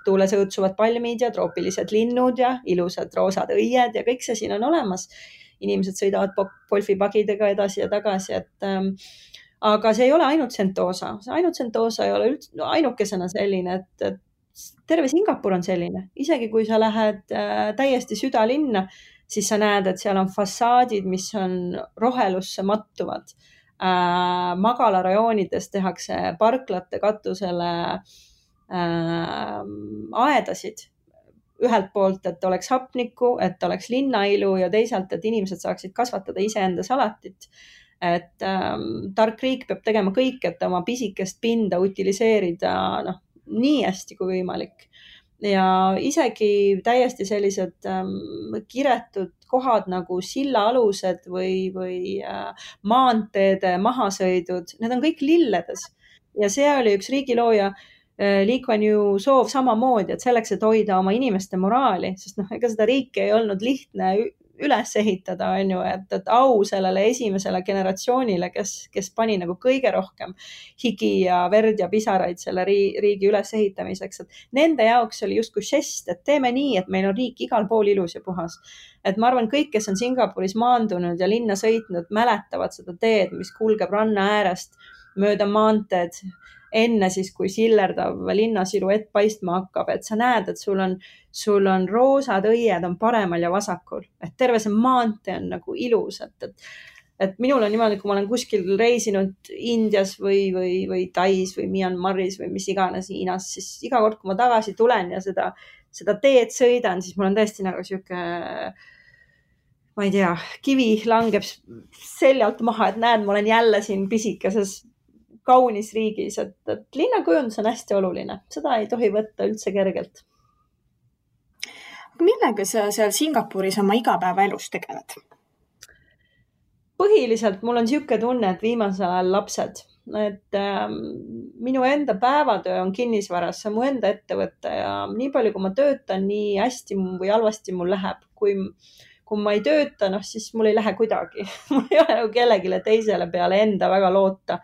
tuules õõtsuvad palmid ja troopilised linnud ja ilusad roosad õied ja kõik see siin on olemas. Inimesed sõidavad golfipagidega edasi ja tagasi, aga see ei ole ainult Sentosa. Ainult Sentosa ei ole ainukesena selline, et terve Singapur on selline. Isegi kui sa lähed täiesti südalinna, siis sa näed, et seal on fassaadid, mis on rohelusse mattuvad. Magalarajoonides tehakse parklate katusele aedasid. Ühelt poolt, et oleks hapnikku, et oleks linnailu ja teisalt, et inimesed saaksid kasvatada iseenda salatit. Et tark riik peab tegema kõik, et oma pisikest pinda utiliseerida nii hästi kui võimalik. Ja isegi täiesti sellised kiretud kohad nagu sillaalused või maanteede mahasõidud, need on kõik lilledes. Ja see oli üks riigilooja Lee Kuan Yew soov samamoodi, et selleks, et hoida oma inimeste moraali, sest ega seda riiki ei olnud lihtne üles ehitada, on ju, et au sellele esimesele generatsioonile, kes pani nagu kõige rohkem higi ja verd ja pisaraid selle riigi üles ehitamiseks, et nende jaoks oli justkui žest, et teeme nii, et meil on riik igal pool ilus ja puhas. Et ma arvan, kõik, kes on Singapuris maandunud ja linna sõitnud, mäletavad seda teed, mis kulgeb ranna äärest mööda maanteed, enne siis, kui sillerdav linnasiluett paistma hakkab, et sa näed, et sul on roosad õied on paremal ja vasakul, et terve see maantee on nagu ilus, et minul on niimoodi, kui ma olen kuskil reisinud Indias või Tais või Myanmaris või mis iganes Hiinas, siis iga kord, kui ma tagasi tulen ja seda teed sõidan, siis mul on tõesti nagu sihuke, ma ei tea, kivi langeb seljalt maha, et näed, ma olen jälle siin pisikeses kaunis riigis, et linnakujundus on hästi oluline. Seda ei tohi võtta üldse kergelt. Millega sa seal Singapuris oma igapäevaelus tegeled? Põhiliselt mul on niisugune tunne, et viimasel ajal lapsed, et minu enda päevatöö on kinnisvaras, see on mu enda ettevõte ja nii palju, kui ma töötan, nii hästi või halvasti mul läheb. Kui ma ei tööta, siis mul ei lähe kuidagi. Mul ei ole kellelegi teisele peale enda väga loota.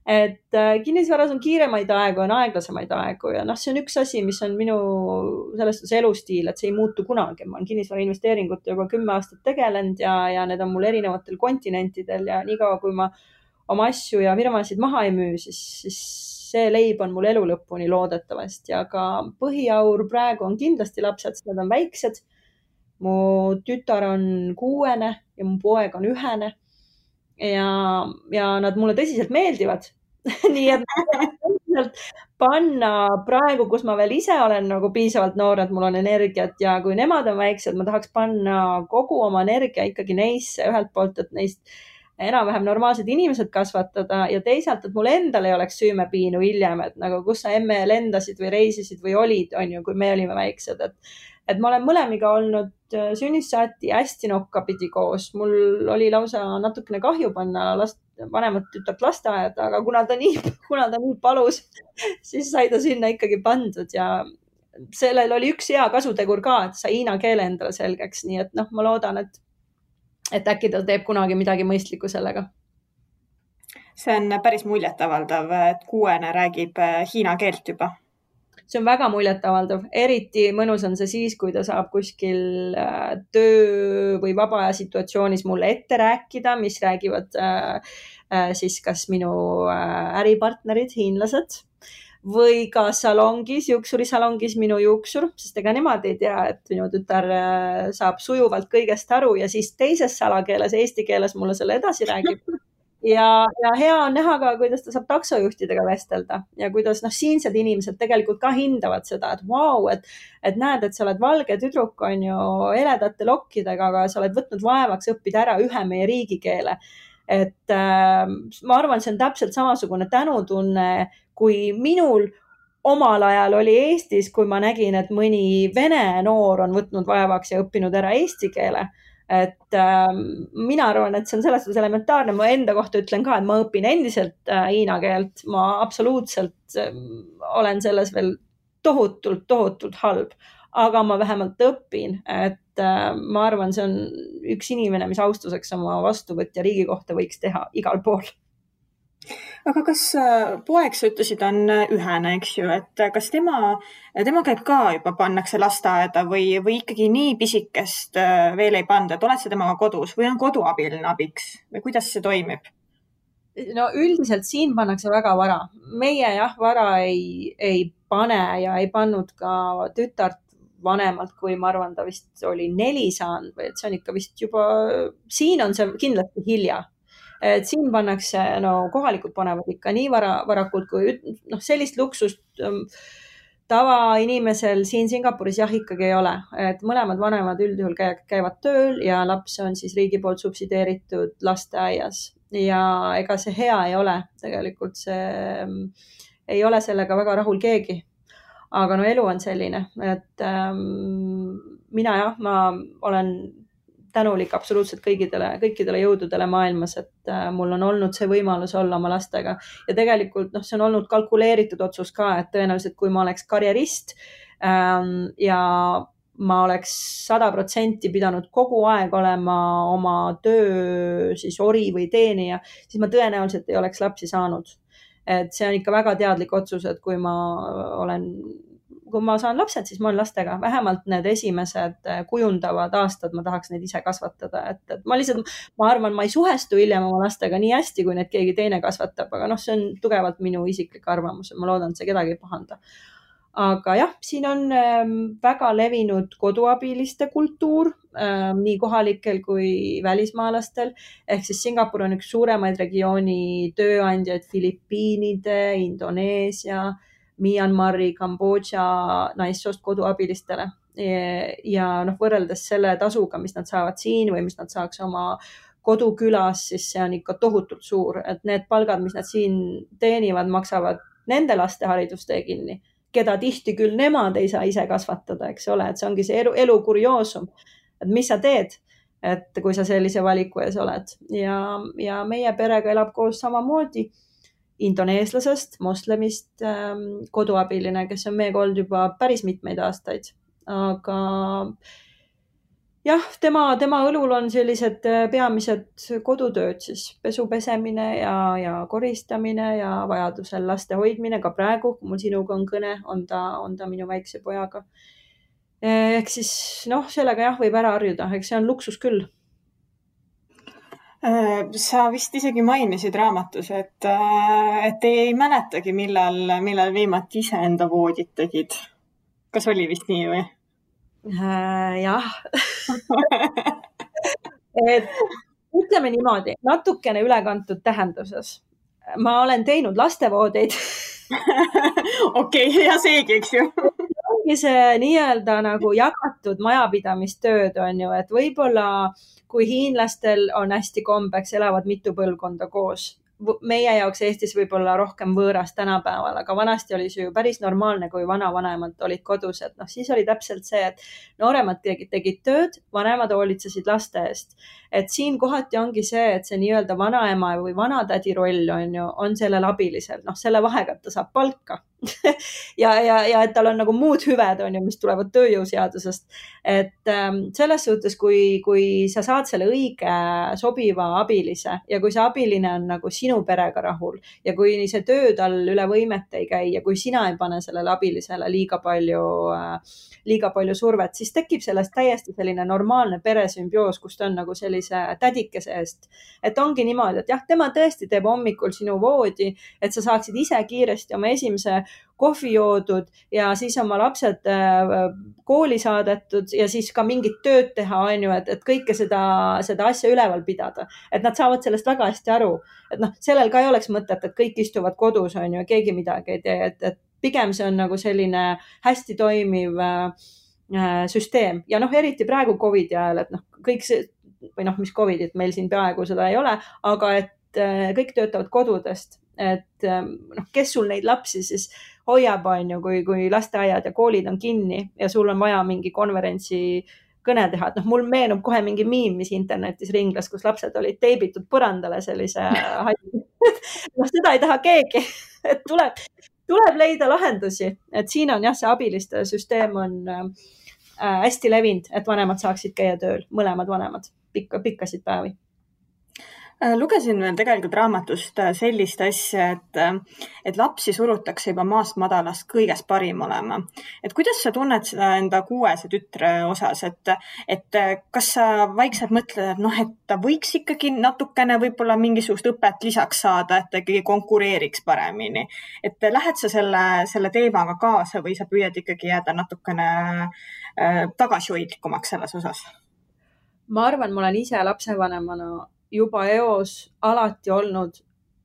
Et kinnisvaras on kiiremaid aegu, on aeglasemaid aegu ja see on üks asi, mis on minu selles elustiil, et see ei muutu kunagi. Ma olen kinnisvara investeeringut juba 10 aastat tegelenud ja need on mul erinevatel kontinentidel ja niikaua, kui ma oma asju ja firmasid maha ei müü, siis see leib on mul elu lõpuni loodetavasti, aga põhiaur praegu on kindlasti lapsed, sest nad on väiksed. Mu tütar on 6 ja mu poeg on 1 ja nad mulle tõsiselt meeldivad. Nii et panna praegu, kus ma veel ise olen nagu piisavalt noor, et mul on energiat ja kui nemad on väiksed, ma tahaks panna kogu oma energia ikkagi neisse ühelt poolt, et neist enam-vähem normaalsed inimesed kasvatada ja teisalt, et mul endal ei oleks süümepiinu hiljem, et nagu kus sa emme lendasid või reisisid või olid, on ju, kui me olime väiksed, et ma olen mõlemiga olnud sünnist saati hästi nokkapidi koos. Mul oli lausa natukene kahju panna vanemat tütart lasteaeda, aga kuna ta nii palus, siis sai ta sinna ikkagi pandud ja sellel oli üks hea kasutegur ka, et sai hiina keele endale selgeks. Nii et ma loodan, et äkki ta teeb kunagi midagi mõistlikku sellega. See on päris muljetavaldav, et 6 räägib hiina keelt juba. See on väga muljetavaldav. Eriti mõnus on see siis, kui ta saab kuskil töö või vaba aja situatsioonis mulle ette rääkida, mis räägivad siis kas minu äripartnerid, hiinlased või ka salongis, juuksurisalongis minu juuksur, sest ega nemad ei tea, et minu tütar saab sujuvalt kõigest aru ja siis teises salakeeles, eesti keeles mulle selle edasi räägib. Ja hea on näha ka, kuidas ta saab taksojuhtidega vestelda ja kuidas siinsed inimesed tegelikult ka hindavad seda, et vau, et näed, et sa oled valge tüdruk, on ju, heledate lokkidega, aga sa oled võtnud vaevaks õppida ära ühe meie riigikeele. Et ma arvan, see on täpselt samasugune tänutunne, kui minul omal ajal oli Eestis, kui ma nägin, et mõni vene noor on võtnud vaevaks ja õppinud ära eesti keele. Et mina arvan, et see on selles suhtes elementaarne. Ma enda kohta ütlen ka, et ma õpin endiselt hiina keelt. Ma absoluutselt olen selles veel tohutult halb, aga ma vähemalt õpin, et ma arvan, see on üks inimene, mis austuseks oma vastuvõtja riigi kohta võiks teha igal pool. Aga kas poeg, sa ütlesid, on 1, eks ju, et kas tema käib ka juba, pannakse lasteaeda või ikkagi nii pisikest veel ei panda, et oled sa temaga kodus või on koduabiline abiks või kuidas see toimib? No üldiselt siin pannakse väga vara. Meie vara ei pane ja ei pannud ka tütart vanemalt, kui ma arvan, ta vist oli 4 saanud või et see on ikka vist juba, siin on see kindlasti hilja. Et siin pannakse, kohalikud panevad ikka nii varakult, kui sellist luksust tavainimesel siin Singapuris ikkagi ei ole. Et mõlemad vanemad üldjuhul käivad tööl ja laps on siis riigi poolt subsideeritud lasteaias ja ega see hea ei ole. Tegelikult see ei ole sellega väga rahul keegi. Aga elu on selline, et ma olen tänulik absoluutselt kõikidele jõududele maailmas, et mul on olnud see võimalus olla oma lastega ja tegelikult see on olnud kalkuleeritud otsus ka, et tõenäoliselt kui ma oleks karjerist ja ma oleks 100% pidanud kogu aeg olema oma töö siis ori või teenija, siis ma tõenäoliselt ei oleks lapsi saanud. Et see on ikka väga teadlik otsus, et kui ma saan lapsed, siis ma olen lastega. Vähemalt need esimesed kujundavad aastad, ma tahaks neid ise kasvatada. Et ma arvan, ma ei suhestu hiljem oma lastega nii hästi, kui need keegi teine kasvatab, aga see on tugevalt minu isiklik arvamus. Ma loodan, et see kedagi ei pahanda. Aga siin on väga levinud koduabiliste kultuur, nii kohalikel kui välismaalastel. Ehk siis Singapur on üks suuremaid regiooni tööandjaid Filipiinide, Indoneesia, Myanmari, Kambodža naissoost koduabilistele ja võrreldes selle tasuga, mis nad saavad siin või mis nad saaks oma kodukülas, siis see on ikka tohutult suur, et need palgad, mis nad siin teenivad, maksavad nende laste haridustee kinni, keda tihti küll nemad ei saa ise kasvatada, eks ole, et see ongi see elu kurioosum, et mis sa teed, et kui sa sellise valiku ees oled ja meie perega elab koos samamoodi indoneeslasest, moslemist koduabiline, kes on meiega olnud juba päris mitmeid aastaid, aga jah, tema õlul on sellised peamised kodutööd, siis pesu pesemine ja koristamine ja vajadusel laste hoidmine. Ka praegu, kui mul sinuga on kõne, on ta minu väikse pojaga. Ehk siis sellega jah, võib ära harjuda, eks see on luksus küll. Sa vist isegi mainisid raamatus, et ei mäletagi, millal viimati ise enda voodit tegid. Kas oli vist nii või? Jah. Ütleme niimoodi, natukene ülekantud tähenduses. Ma olen teinud lastevoodeid. Okei, ja seegi, eks ju. Ongi see nii-öelda nagu jagatud majapidamistööd on ju, et võib-olla kui hiinlastel on hästi kombeks, elavad mitu põlvkonda koos. Meie jaoks Eestis võib-olla rohkem võõras tänapäeval, aga vanasti oli see ju päris normaalne, kui vanavanemad olid kodus, et siis oli täpselt see, et nooremad tegid tööd, vanemad hoolitsesid laste eest. Et siin kohati ongi see, et see nii-öelda vanaema või vanatädi roll on sellel abilisel, selle vahega, et ta saab palka ja et tal on nagu muud hüved, mis tulevad tööjõuseadusest. Et selles suhtes, kui sa saad selle õige sobiva abilise ja kui see abiline on nagu sinu perega rahul ja kui see töö tal üle võimete ei käi ja kui sina ei pane sellele abilisele liiga palju survet, siis tekib sellest täiesti selline normaalne peresümbioos, kus ta on nagu sellise tädikese eest. Et ongi niimoodi, et jah, tema tõesti teeb hommikul sinu voodi, et sa saaksid ise kiiresti oma esimese kohvi joodud ja siis oma lapsed kooli saadetud ja siis ka mingit tööd teha, et kõike seda asja üleval pidada. Et nad saavad sellest väga hästi aru. Et sellel ka ei oleks mõtet, et kõik istuvad kodus, keegi midagi ei tee. Et pigem see on nagu selline hästi toimiv süsteem. Ja eriti praegu COVID ajal, et kõik see, või mis COVIDit meil siin peaaegu seda ei ole, aga et kõik töötavad kodudest. Et kes sul neid lapsi siis hoiab, kui lasteaiad ja koolid on kinni ja sul on vaja mingi konverentsi kõne teha. Et mul meenub kohe mingi miim, mis internetis ringlas, kus lapsed olid teibitud põrandale sellise seda ei taha keegi. Et tuleb leida lahendusi. Et siin on jah, see abiliste süsteem on hästi levinud, et vanemad saaksid käia tööl, mõlemad vanemad, pikkasid päevi. Lugesin veel tegelikult raamatust sellist asja, et lapsi surutakse juba maast madalast kõigest parim olema. Et kuidas sa tunned seda enda 6 tütre osas, et kas sa vaikselt mõtled, et ta võiks ikkagi natukene võib-olla mingisugust õpet lisaks saada, et ta ikkagi konkureeriks paremini. Et lähed sa selle teemaga kaasa või sa püüad ikkagi jääda natukene tagasihoidlikumaks selles osas? Ma arvan, ma olen ise lapsevanemana juba eos alati olnud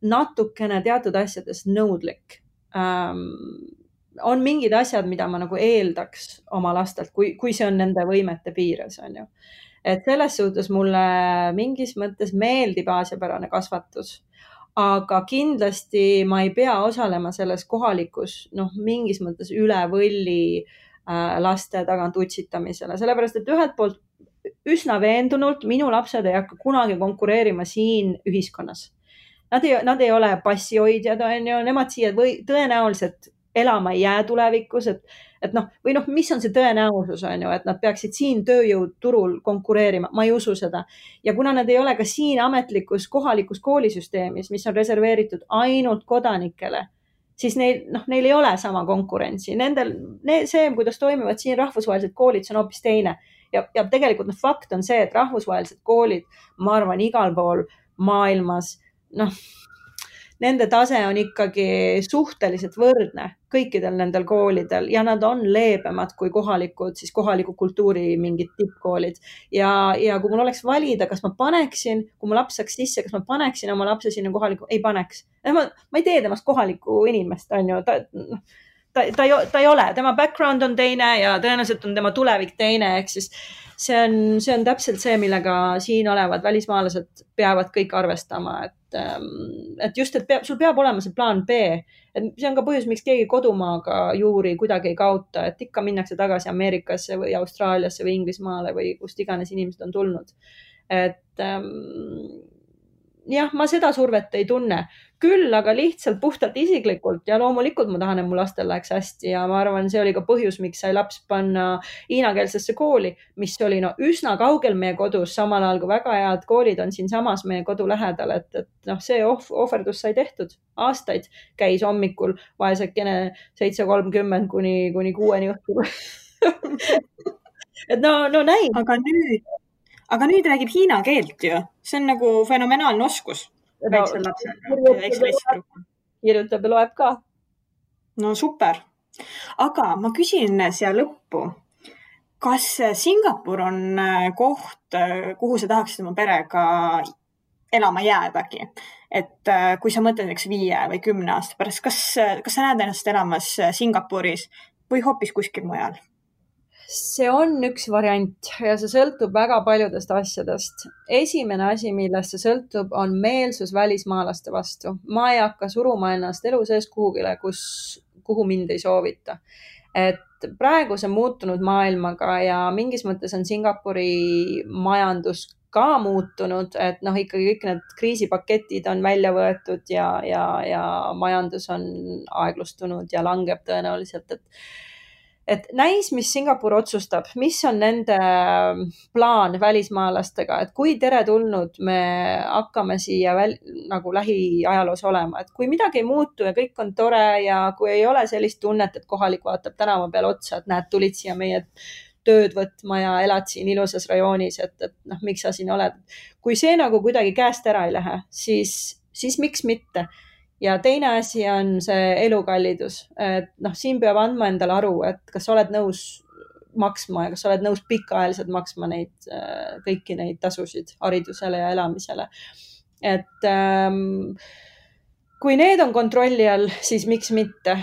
natukene teatud asjades nõudlik. On mingid asjad, mida ma nagu eeldaks oma lastelt, kui see on nende võimete piires. Et selles suhtes mulle mingis mõttes meeldib aasiapärane kasvatus, aga kindlasti ma ei pea osalema selles kohalikus mingis mõttes üle võlli laste tagant utsitamisele, sellepärast et ühelt poolt üsna veendunult minu lapsed ei hakka kunagi konkureerima siin ühiskonnas. Nad ei ole passihoidjad, nemad siia tõenäoliselt elama ei jää tulevikus, või mis on see tõenäosus, et nad peaksid siin tööjõuturul konkureerima, ma ei usu seda. Ja kuna nad ei ole ka siin ametlikus kohalikus koolisüsteemis, mis on reserveeritud ainult kodanikele, siis neil ei ole sama konkurentsi. See, kuidas toimivad siin rahvusvahelised koolid, see on hoopis teine. Ja tegelikult fakt on see, et rahvusvahelised koolid, ma arvan, igal pool maailmas, nende tase on ikkagi suhteliselt võrdne kõikidel nendel koolidel ja nad on leebemad kui kohaliku kultuuri mingid tippkoolid. Ja kui mul oleks valida, kas ma paneksin, kui mu laps saaks sisse, kas ma paneksin oma lapse sinna kohaliku, ei paneks. Ma ei tee temast kohalikku inimest, ta ei ole, tema background on teine ja tõenäoliselt on tema tulevik teine, ehk siis see on täpselt see, millega siin olevad välismaalased peavad kõik arvestama, et just, et sul peab olema see plaan B. Et see on ka põhjus, miks keegi kodumaaga juuri kuidagi ei kaota, et ikka minnakse tagasi Ameerikasse või Austraaliasse või Inglismaale või kust iganes inimesed on tulnud. Et jah, ma seda survet ei tunne. Küll, aga lihtsalt puhtalt isiklikult ja loomulikult ma tahan, et mu lastel läheks hästi ja ma arvan, see oli ka põhjus, miks sai laps panna hiinakeelsesse kooli, mis oli üsna kaugel meie kodus, samal ajal kui väga head koolid on siinsamas meie kodu lähedal, et see ohverdus sai tehtud. Aastaid käis hommikul vaesekene 7:30 kuni 6 õhtul. Et no näib. Aga nüüd räägib hiina keelt ju. See on nagu fenomenaalne oskus. Kirjutab ja loeb ka. No super. Aga ma küsin siia lõppu, kas Singapur on koht, kuhu sa tahaksid oma perega elama jäädagi? Et kui sa mõtled 5 või 10 aasta pärast, kas sa näed ennast elamas Singapuris või hoopis kuskil mujal? See on üks variant ja see sõltub väga paljudest asjadest. Esimene asi, millest see sõltub, on meelsus välismaalaste vastu. Ma ei hakka suruma ennast elu sees kuhugile, kuhu mind ei soovita. Et praegu see muutunud maailmaga ja mingis mõttes on Singapuri majandus ka muutunud, et ikkagi kõik need kriisipaketid on välja võetud ja majandus on aeglustunud ja langeb tõenäoliselt, et näis, mis Singapur otsustab, mis on nende plaan välismaalastega, et kui teretulnud me hakkame siia nagu lähiajaloos olema, et kui midagi ei muutu ja kõik on tore ja kui ei ole sellist tunnet, et kohalik vaatab tänava peal otsa, et näed, tulid siia meie tööd võtma ja elad siin ilusas rajoonis, et miks sa siin oled. Kui see nagu kuidagi käest ära ei lähe, siis miks mitte? Ja teine asi on see elukallidus, et siin peab andma endale aru, et kas oled nõus maksma ja kas oled nõus pikaajaliselt maksma kõiki neid tasusid haridusele ja elamisele. Et kui need on kontrolli all, siis miks mitte?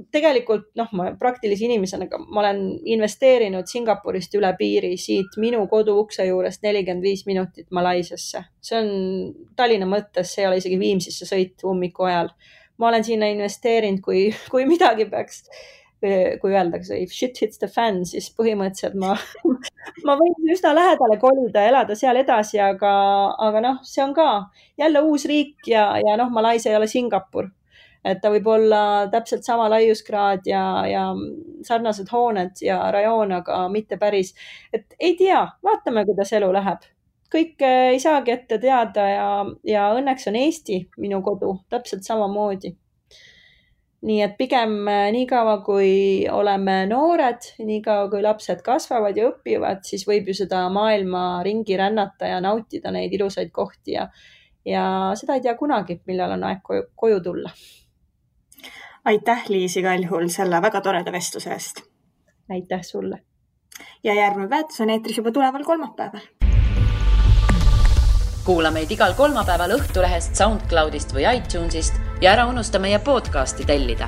Tegelikult ma praktilise inimesena ma olen investeerinud Singapurist üle piiri siit minu kodu ukse juurest 45 minutit Malaisiasse. See on Tallinna mõttes, see ei ole isegi Viimsisse sõit ummiku ajal. Ma olen sinna investeerinud, kui midagi peaks, kui öeldakse, if shit hits the fan, siis põhimõtteliselt ma võin üsna lähedale kolida ja elada seal edasi, aga see on ka jälle uus riik ja Malaisia ei ole Singapur. Et ta võib olla täpselt sama laiuskraad ja sarnased hooned ja rajoon, aga mitte päris. Et ei tea, vaatame, kuidas elu läheb. Kõik ei saagi ette teada ja õnneks on Eesti minu kodu täpselt samamoodi. Nii et pigem nii kaua, kui oleme noored, nii kaua, kui lapsed kasvavad ja õpivad, siis võib ju seda maailma ringi rännata ja nautida neid ilusaid kohti ja seda ei tea kunagi, millal on aeg koju tulla. Aitäh, Liis, igal juhul selle väga toreda vestluse eest. Aitäh sulle. Ja järgmine väärtus on eetris juba tuleval kolmapäeval. Kuula meid igal kolmapäeval Õhtulehest, SoundCloudist või iTunesist ja ära unusta meie podcasti tellida.